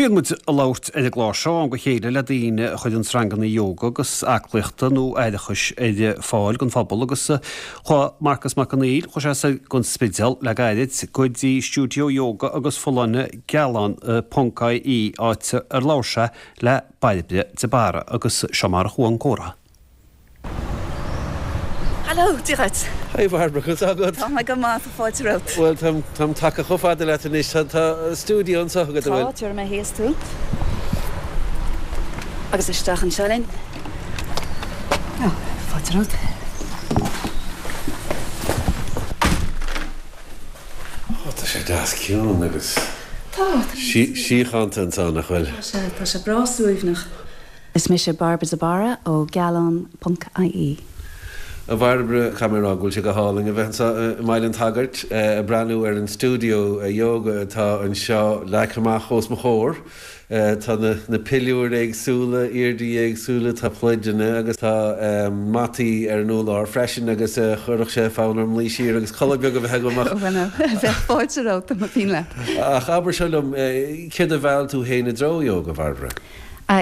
Bíonn muid ag labhairt ar an gclár seo ó am go chéile le daoine a chuireanns ranganna ióga agus aclaíochta nó aireachais ar fáil don phobal agus chuaigh Marcus Mac Conghail, chuaigh sé soir gon Spidéal le gairid go dtí stiúideo ióga agus folláine Gealán ponc IE áit ar labhair sé le Bairbre de Barra agus seo mar a chuaigh an comhrá. Hello, Dia dhuit. Hi Bhairbre, conas tá agat? Tá mé go maith, tá fáilte romhat. Bhuel, táim, táim tagtha chomh fada leat anois, tá, tá stiúideo anseo agat, an bhfuil? Tá, tabharfaidh mé thíos thú. Agus isteach anseo linn. Ó, fáilte romhat. Ó, tá sé deas ciúin agus. Tá, tá. Síochánta anseo, nach bhfuil? Tá sé, tá sé breá suaimhneach. Is mise Bairbre de Barra ó Gealán ponc IE. A Bhairbre, caithfidh mé a rá go bhfuil sé go hálainn a bheith anseo i mBaile an tSagairt ag breathnú ar an stiúideo ióga atá anseo leagtha amach os mo chomhair. Tá na piliúir éagsúla, airdí éagsúla, tá pluideanna agus tá mataí ar an urlár freisin agus chuirfeadh sé fonn orm luí siar agus codladh beag a bheith agam ach. Bhuel, bheadh fáilte romhat dá mba mhian leat. Ach abair seo liom, céard a mheall tú féin i dtreo ióga, a Bhairbre?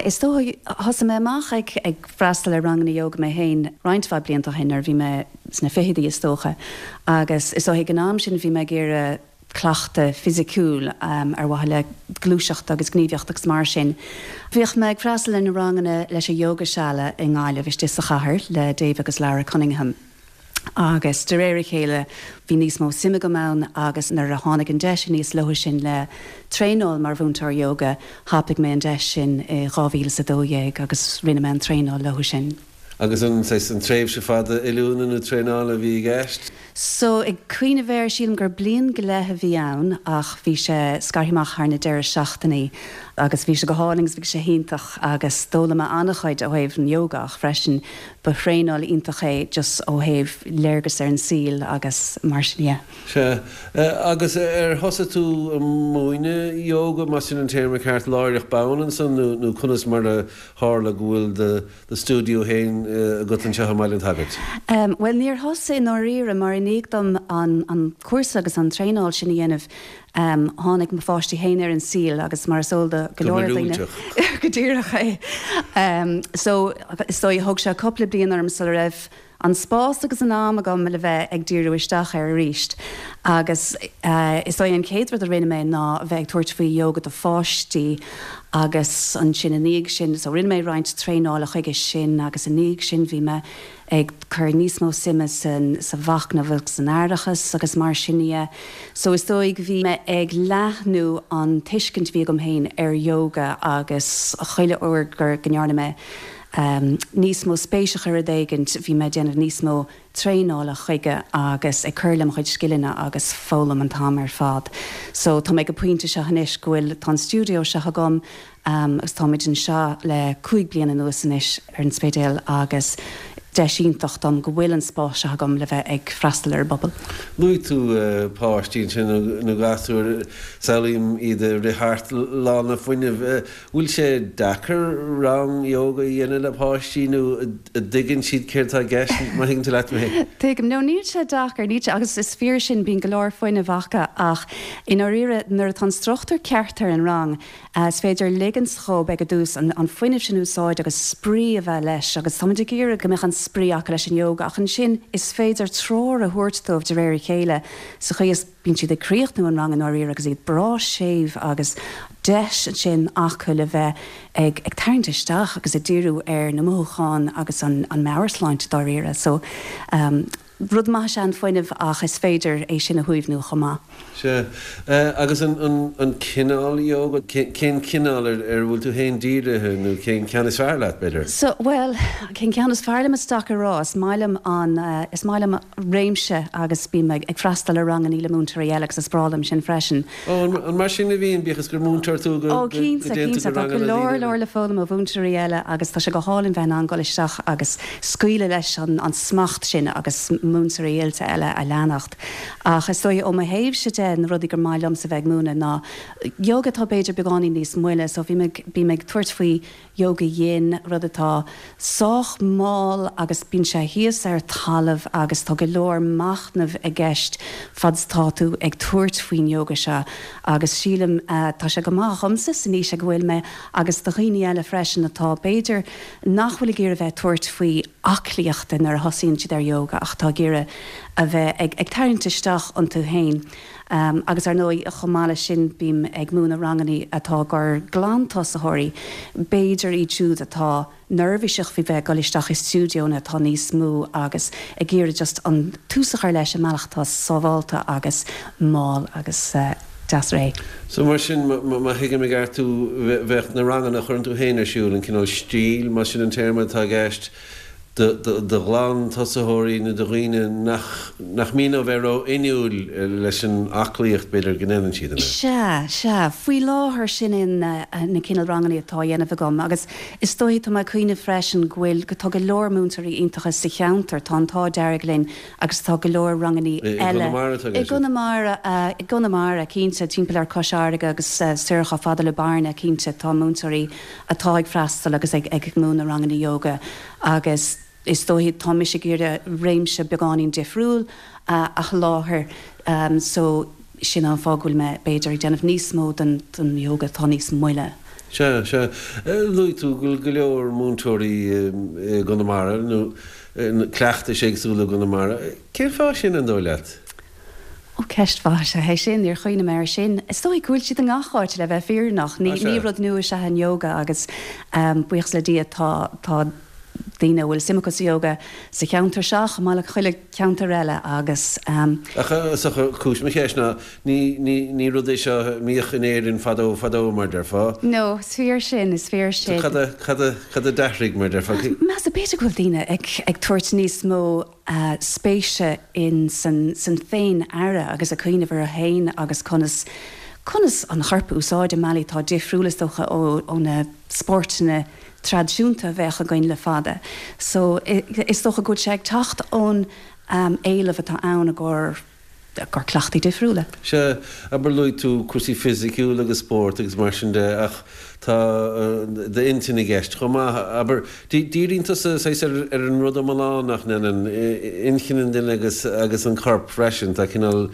Is dócha, thosaigh mé amach ag freastal ar ranganna ióga mé féin roinnt mhaith blianta ó shin, nuair a bhí mé sna fichidí is dócha, agus is dóigh ag an am sin bhí mé ag iarraidh cleachtadh fisiciúil ar mhaithe le gluaiseacht agus gníomhaíocht agus mar sin. Bhíodh mé ag freastal ar na ranganna leis an Yogashala i nGaillimh istigh sa chathair le Dave agus Lara Cunningham. Agus de réir a chéile bhí níos mó suime agam ann agus nuair a tháinig an deis aníos leo sin le traenáil mar mhúinteoir ióga, thapaigh mé an deis sin i 2012 agus rinne mé an traenáil leo sin. Agus an saghas, an tréimhse fada oiliúna nó traenála a bhí i gceist? So, ag cuimhneamh air, sílim gur bliain go leith a bhí ann ach bhí sé scartha amach thar na deireadh seachtainí agus bhí sé go hálainn agus bhí sé hiontach agus d'fhoghlaim mé an-chuid ó thaobh an ióga ach freisin Ba thraenáil iontach é just ó thaobh léargas ar an saol agus mar sin dhe. Sea. Agus ar thosaigh tú ag múineadh ióga, más sin an téarma ceart, láithreach bonn ansan nó nó conas mar a tharla go bhfuil do do stiúideo féin agat anseo i mBaile an tSagairt? Bhuel níor thosaigh i ndáiríre mar i ndiaidh dom an an cúrsa agus an traenáil sin a dhéanamh Tháinig mo pháistí féin ar an saol agus mar is eol do go leor daoine, go díreach é. So, is dóigh, thóg sé cúpla bliain orm sula raibh an spás agus an am agam le bheith ag díriú isteach air arís. Agus is dóigh an chéad rud a rinne mé ná a bheith ag tabhairt faoi ióga do pháistí agus ansin i ndiaidh sin, so rinne mé roinnt traenála chuige sin agus i ndiaidh sin bhí mé ag cur níos mó suime sa mhachnamh agus san aireachas agus mar sin dhe. So is dóigh bhí mé ag leathnú an tuiscint a bhí agam féin ar yoga agus chuile uair go ndearna mé níos mó spéis a chur i rud éigint bhí mé ag déanamh níos mó traenála chuige agus ag cur le mo chuid scileanna agus foghlaim an t-am ar fad. So tá mé ag an pointe seo anois go bhfuil, tá an stiúideo seo agam, Agus táimid anseo le 5 bliana anuas anois ar an Spidéal agus deis iontach dom go bhfuil an spás seo agam le bheith ag freastal ar an bpobal. Luaigh tú páistí ansin nó gasúir, samhlaím iad ag rith thart lán le fuinneamh. Bhfuil sé deacair rang ióga a dhéanamh le páistí nó an dtuigeann siad céard atá i gceist, má thuigeann tú leat mé? Tuigim. No, níl sé deacair, níl sé, agus is fíor sin, bíonn go leor fuinnimh acu ach i ndáiríre nuair atá an struchtúr ceart ar an rang, Is féidir ligint dhóibh ag an dtús an fuinneamh sin a úsáid agus spraoi a bheith leis agus táimid ag iarraidh go mbeadh an spraoi acu leis an ióga ach ansin is féidir treoir a thabhairt dóibh de réir a chéile sa chaoi is bíonn siad ag críochnú an ranga i ndáiríre agus iad breá séimh agus deis ansin acu le bheith ag ag tarraingt isteach agus ag díriú ar na mothúcháin agus an meabhairshláinte dáiríre. So. Rud maith is ea an fuinneamh ach is féidir é sin a shuaimhniú chomh maith. Sea. Agus an cineál ióga, cén cineál ar a bhfuil tú féin dírithe nó cén ceann is fearr leat, b'fhéidir? So, bhuel, cén ceann is fearr liom is deacair a rá. Is maith liom an, is maith liom réimse agus bím ag freastal ar rangannaí le múinteoirí eile agus is breá liom sin freisin. Ó, an mar sin a bhíonn, bíodh is gur múinteoir tú, go Ó, cinnte, dtéann tú cinnte. go Tá go ranganna leor, daoine eile? leor le foghlaim ó mhúinteoirí eile agus tá sé go hálainn bheith in ann dul isteach agus scaoileadh leis an smacht sin agus múinteoirí oilte eile a leanacht. Ach is dóigh, ó mo thaobhse de, na rudaí gur maith liomsa bheith ag múineadh ná ióga atá b'fhéidir beagáinín níos moille. So bhí mé, bím ag tabhairt faoi Yoga Yin, rud atá sách mall agus bíonn sé thíos ar talamh agus tá go leor machnaimh i gceist fad is atá tú ag tabhairt faoin yoga seo agus sílim tá sé go maith. maith dhomsa san aois ag a bhfuil mé agus do dhaoine eile freisin atá, b'fhéidir, nach bhfuil ag iarraidh a bheith ag tabhairt faoi aclaíochta nuair a thosaíonn siad ar yoga ach atá ag iarraidh a bheith ag ag tarraingt isteach iontu féin. Agus ar ndóigh, chomh maith leis sin, bím ag múineadh rangannaí atá i gcomhair glantosaitheoirí, b'fhéidir iad siúd atá neirbhíseach faoi bheith ag dul isteach i stiúideonna atá níos mó agus ag iarraidh just an tús a chur leis i mbealach atá sábhálta agus mall agus deas réidh. So mar sin, má thuigim i gceart thú, bheadh na ranganna a chuireann tú féin ar siúl, an cineál stíl, más sin an téarma atá i gceist, do ghlantosaitheoirí nó do dhaoine nach nach mian leo bheith ró-inniúil leis an aclaíocht, b'fhéidir, go ndéanann siad, an ea? Sea, sea. Faoi láthair sin é na cineál ranganna atá á dhéanamh agam agus is dóichí, tá mé ag cuimhneamh freisin go bhfuil, go, tá go leor múinteoirí iontacha sa cheantar, tá an t-ádh dearg linn agus tá go leor ranganna eile. I gConamara atá i gceist? I gConamara, i gConamara, cinnte, timpeall ar Cois Fharraige agus soir chomh fada le Bearna, cinnte, tá múinteoirí atá ag freastal agus ag ag múineadh ranganna ióga agus is dóichí tá mise ag iarraidh réimse beagáinín difriúil a sholáthar so sin an fáth go bhfuil mé b'fhéidir ag déanamh níos mó den den ióga atá níos moille. Sea, sea. Luaigh tú go bhfuil go leor múinteoirí i gConamara nó cleachtais éagsúla i gConamara. Cén fáth sin, an dóigh leat? Ó, ceist mhaith is ea é sin, níor chuimhnigh mé air sin. Is dóigh go bhfuil siad i ngach áit, le bheith fírinneach. Ní, ní rud nua is ea an ióga agus buíochas le Dia tá, tá daoine a bhfuil suim acu sa ióga sa cheantar seo chomh maith le chuile cheantar eile agus. Ach is dócha, cúis mo cheist ná, ní, ní, ní rud é seo a mbíodh in Éirinn fadó, fadó, mar déarfá. No, is fíor sin, is fíor sin. So cad a, cad a, cad a d'athraigh, mar déarfá? Measaim, b'fhéidir go bhfuil daoine ag, ag tabhairt níos mó spéise in san san féin-aire agus ag cuimhneamh orthu féin agus conas conas an chorp a úsáid i mbealaí atá difriúil is dócha ó ó na spóirteanna traidisiúnta a bheadh againn le fada. So is dócha go bhfuil sé ag teacht ón éileamh atá ann i gcomhair gcomhair cleachtaí difriúla. Sea, abair luaigh tú cúrsaí fisiciúla agus spórt agus mar sin de ach tá d'intinn i gceist chomh maith. Abair, díríonn tusa saghas ar ar an rud iomlán nach ndéanann, inchinn an duine agus agus an corp freisin, tá cineál,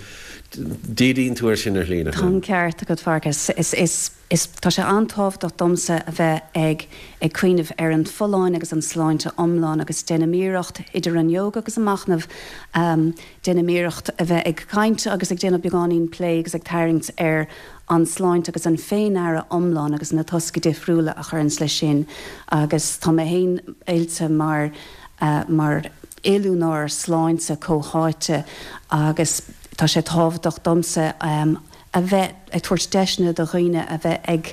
díríonn tú air sin ar shlí, nach Tá an ceart agat, Fearghas. Is is. Is tá sé an-tábhachtach domsa a bheith ag ag cuimhneamh ar an folláine agus an sláinte iomlán agus déanaim iarracht, idir an ióga agus an machnamh, déanaim iarracht a bheith ag caint agus ag déanamh beagáinín plé agus ag tarraingt ar an sláinte agus an féin-aire iomlán agus na tosca difriúla a chuireanns leis sin agus tá mé féin oilte mar mar oiliúnóir sláinte comhtháite agus tá sé tábhachtach domsa a bheith ag tabhairt deiseanna do dhaoine a bheith ag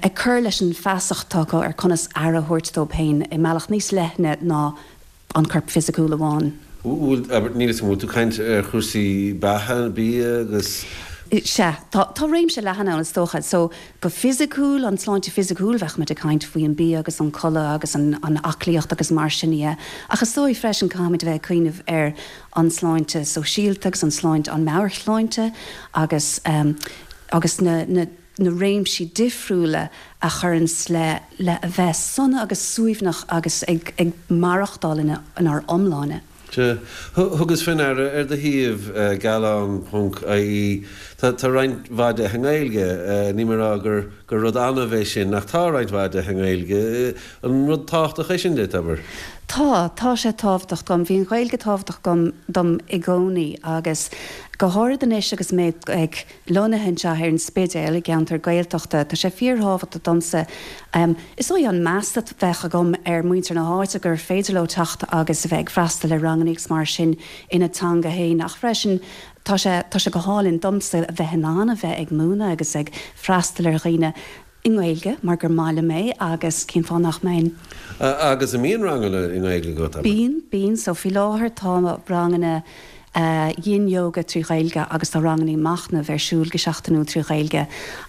ag cur leis an feasacht atá acu ar conas aire a thabhairt dóibh féin i mbealach níos leithne ná an corp fisiciúil amháin. Bhfuil, abair, níl 'fhios agam, bhfuil tú ag caint ar chúrsaí beatha, bia agus. Sea, tá, tá réimse leathan ann is dócha. So, go fisiciúil, an tsláinte fisiciúil, bheadh muid ag caint faoi an bia agus an codladh agus an an aclaíocht agus mar sin dhe. Ach is dóigh freisin caithfimid a bheith ag cuimhneamh ar an sláinte sóisialta agus an sláinte, an meabhairshláinte agus agus na na na réimsí difriúla a chuireanns le le a bheith sona agus suaimhneach agus ag ag maireachtáil ina inár iomláine. Sea. Thugas fé ndeara ar do shuíomh, gealán ponc ie, tá tá roinnt mhaith de i nGaeilge. Níl mé ag rá gur gur rud annamh é sin ach tá roinnt mhaith de i nGaeilge. An rud tábhachtach é sin duit, abair? Tá, tá sé tábhachtach dom. Bhí an Ghaeilge tábhachtach dom, dom i gcónaí agus go háirid anois agus mé ag, lonnaithe anseo ar an Spidéal, i gceantar Gaeltachta, tá sé fíorthábhachtach domsa, is dóigh an meas a bheadh agam ar mhuintir na háite gur féidir leo teacht agus a bheith ag freastal ar ranganna agus mar sin ina dteanga féin ach freisin tá sé, tá sé go hálainn domsa a bheith in ann a bheith ag múineadh agus ag freastal ar dhaoine i nGaeilge mar gur maith liom é agus cén fáth nach mbeinn? Agus an mbíonn ranganna i nGaeilge agat, abair? Bíonn, bíonn. So faoi láthair tá ranganna Yin Yoga trí Ghaeilge agus tá ranganna machnaimh ar siúl go seachtainiúil trí Ghaeilge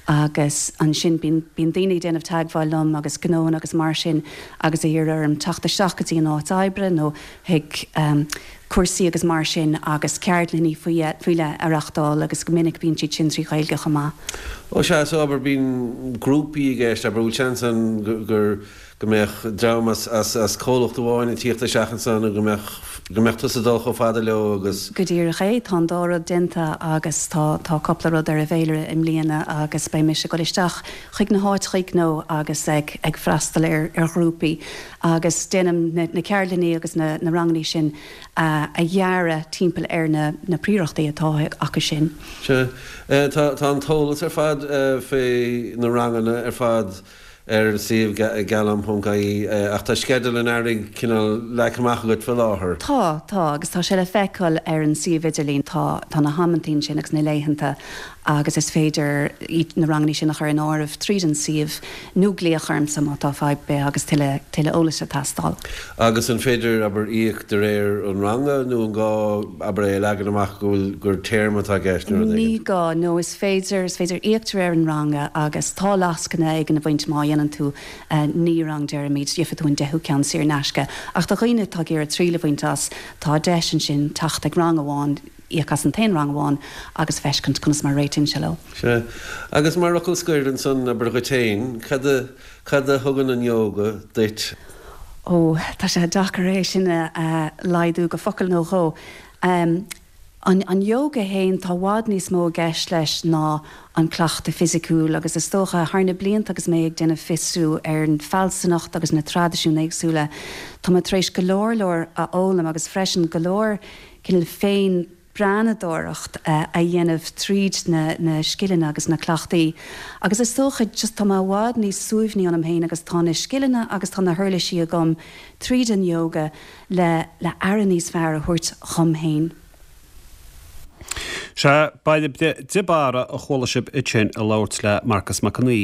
agus ansin bíonn, bíonn daoine ag déanamh teagmháil liom agus gnóanna agus mar sin agus ag iarraidh orm teacht isteach go dtí an áit oibre nó chuig. cúrsaí agus mar sin agus ceardlanna faoi leith a reachtáil agus go minic bíonn siad sin trí Ghaeilge chomh maith. Ó sea, so abair bíonn grúpaí i gceist, abair bhfuil seans ann gur, go mbeadh dream as, as, as comhlacht amháin ag tíocht isteach ansan nó go mbeadh, go mbeadh tusa ag dul chomh fada leo agus. Go díreach é, tá an dá rud déanta agus tá, tá cúpla rud ar an bhféilire i mbliana agus beidh mise ag dul isteach chuig na háiteachaí gnó agus ag, ag freastal ar, ar ghrúpaí agus déanaim na, na ceardlanna agus na, na rangannaí sin a, a dhearadh timpeall ar na, na príorachtaí atá acu sin. Sea. Tá, tá an t-eolas ar fad fé na ranganna ar fad ar an suíomh gealam.ie ach tá sceideal an earraigh cineál leagtha amach agat fé láthair. Tá, tá, agus tá sé le feiceáil ar an suíomh idirlín. Tá, tá na hamantaí ansin agus na laethanta agus is féidir na rangannaí sin a chur in áireamh tríd an suíomh nó glaoch ormsa má tá fadhb ar bith agus tuilleadh, tuilleadh eolais ag teastáil. Agus an féidir, abair, íoc de réir an ranga nó an gá, abair, é a leagan amach go bhfuil, gur téarma atá i gceist nó rud éigin? Ní gá, no, is féidir, is féidir íoc de réir an ranga agus tá lascaine éigin ag baint má dhéanann tú 9 rang deirimid, gheobhaidh tú an deichiú ceann saor in aisce. Ach do dhaoine atá ag iarraidh triail a bhaint as, tá deis ansin teacht ag rang amháin, íoc as an t-aon rang amháin agus feiscint conas mar a réitíonn sé leo. Sea. Agus mar fhocal scoir ansan, abair dhuit féin, cad a, cad a thugann an ióga duit? Ó, tá sé deacair é sin a laghdú go focal nó dhó. An an ióga fhéin, tá i bhfad níos mó i gceist leis ná an cleachtadh fisiciúil agus is dócha, thar na blianta agus mé ag déanamh fiosrú ar an fealsúnacht agus na traidisiúin éagsúla, tá mé tar éis go leor leor a fhoghlaim agus freisin go leor cineál féin breathnadóireacht a dhéanamh tríd na na scileanna agus na cleachtaí agus is dócha just tá mé i bhfad níos suaimhní ionam féin agus tá na scileanna agus tá na huirlisí agam tríd an ióga le le aire níos fearr a thabhairt dhom féin. Sea, Bairbre de Barra a chuala sibh ansin ag labhairt le Marcus Mac Con Aoidh.